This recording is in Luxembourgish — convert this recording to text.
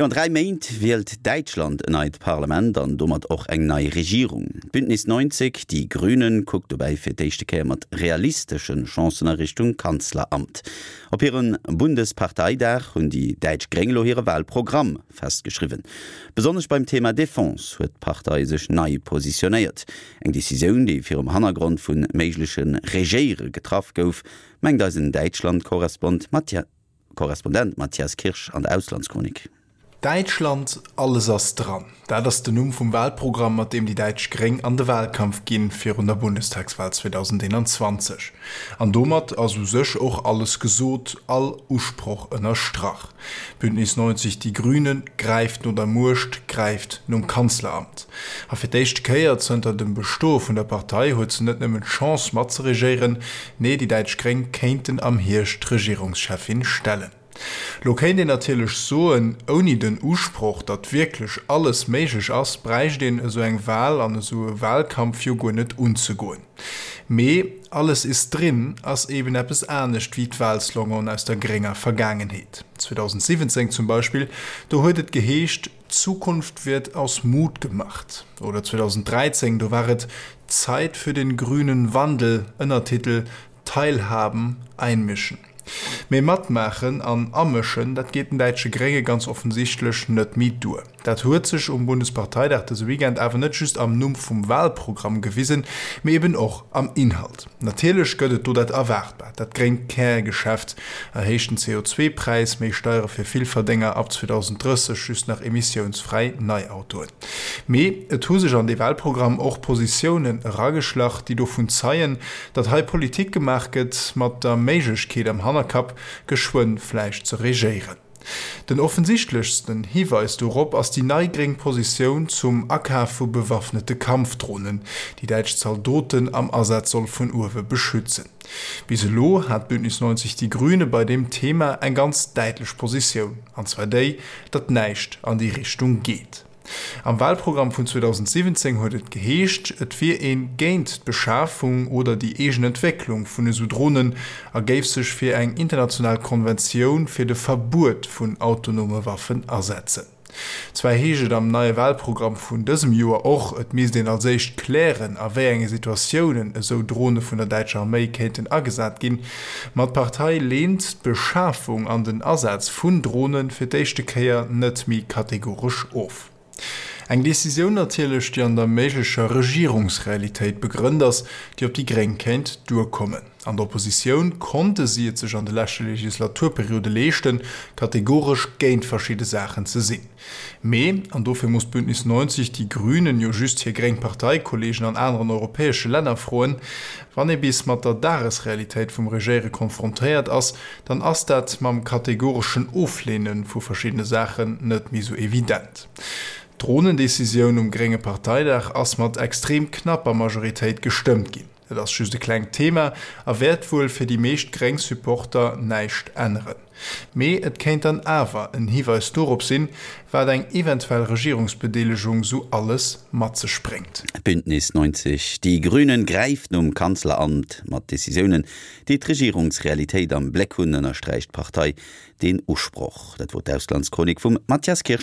Jo, an 3 Méint wielt Däitschland en neit Parlament an domat och eng nei Regierung. D'Bündnis 90, Die Grünen kuckt dobäi fir d'éischte Kéier mat realistesche Chancen a Richtung Kanzleramt. Op hirem Bundesparteidag hunn déi däitsch Gréng elo hire Wahlprogramm festgeschriwwen. Besonnesch beim Thema Defense huet d'Partei sech nei positionéiert. Eng Decisioun, déi virum Hannergrond vu méigleche Regéiere getraff gouf, mengt eisen Däitschland-Korrespondent Mathias Kirsch an der Auslandschronik. Däitschland, alles ass dran. Dat ass den Numm vum Wahlprogramm, mat deem déi däitsch Gréng an de Wahlkampf ginn, virun der Bundestagswahl 2021. An domat ass u sech och alles gesot, all Usproch ënnerstrach. Bündnis 90, Die Grünen gräift no der Muecht, gräift nom Kanzleramt. A fir d'éischte Kéier zënter dem Bestoe vun der Partei huet se net nëmmen d'Chance matzeregéieren, nee déi däitsch Gréng kéinten am Hierscht d'Regierungscheffin stellen. Lo kéint een natierlech soen, ouni den Usproch, datt wierklech alles méiglech ass, bräicht een esou eng Wahl an esou e Wahlkampf jo guer net unzegoen. Mee alles ist drin ass eben eppes anescht wéi d'Wahlsloganen aus der grénger Vergaangenheet. 2017 zum Beispill, do huet et geheescht, Zukunft wird aus Mut gemacht. Oder 2013, do war et Zeit für den grünen Wandel, Ënnertitel, Teilhaben, einmischen. Mee matmaachen an amëschen, dat geet den däitsche Grénge ganz offensichtlech net méi duer. Dat huet sech um Bundesparteidag dëse Weekend awer net just am Numm vum Wahlprogramm gewisen, mee eben och am Inhalt. Natierlech gëtt et do dat Erwaartbart, dat gréngt Kärgeschäft, erhéichten CO2-Präis, méi Steiere fir Villverdénger, ab 2030 just nach emissiounsfräi Neiautoen. Mee et hu sech an dee Wahlprogramm och Positiounen erageschlach, déi dovun zeien, Datt hei Politik gemaach gëtt mat der Méiglechkeet am Hannerkapp, geschwënn vläicht ze regéieren. Den offensichtlechsten Hiweis dorop ass déi nei gréng Positioun zum Akaf vu bewaffnete Kampfdronen, déi däitsch Zaldoten am Asaz soll vun uewe beschützen. Bis elo hat Bündnis 90 Die Grüne bei deem Thema eng ganz däitlech Positioun, an zwar déi, datt näischt an déi Richtung geet. Am Wahlprogramm vun 2017 huet et geheescht, et wier ee géint d'Beschafung oder déi eegen Entwécklung vun esou Dronen a géif sech fir eng international Konventioun fir de Verbuet vun autonome Waffen asetzen. Zwar heescht et am neie Wahlprogramm vun dësem Joer och, et misst een als éischt klären, a wéi enge Situatiounen esou Drone vun der däitscher Arméi kéinten agesat ginn, ma d'Partei leent d'Beschafung an den Asaz vun Drone fir d'éischte Kéier net méi kategoresch of. Eng Decisioun natierlech, déi an der méiglecher Regierungsrealitéit begrënnt ass, déi op déi Gréng kéint duerkommen. An der Oppositioun konnte si et sech an de leschte Legislaturperiode leeschten, kategoresch géint verschidde Saachen ze sinn. Mee, an dofir muss Bündnis 90, Die Grünen jo just hir gréng Parteikollegen an aneren europäesche Länner froen, wann ee bis mat der Dagesrealitéit vum Regéiere konfrontéiert ass, dann ass dat mam kategoreschen Ofleene vu verschiddene Saachen net méi sou evident. D'Dronendecisioun um grénge Parteidag ass mat extrem knapper Majoritéit gestëmmt ginn. Et ass just e klengt Thema a wäert wuel fir déi meescht gréng Supporter näischt änneren. Mee et kéint dann awer en Hiweis dorop sinn, wat eng eventuell Regierungsbedeelegung sou alles mat sech bréngt. Bündnis 90, Die Grünen gräift nom Kanzleramt mat Decisiounen, déi d'Regierungsrealitéit am Bléck hunn, ënnersträicht d'Partei deen Usproch. Dat wor d'Auslandschronik vum Mathias Kirsch.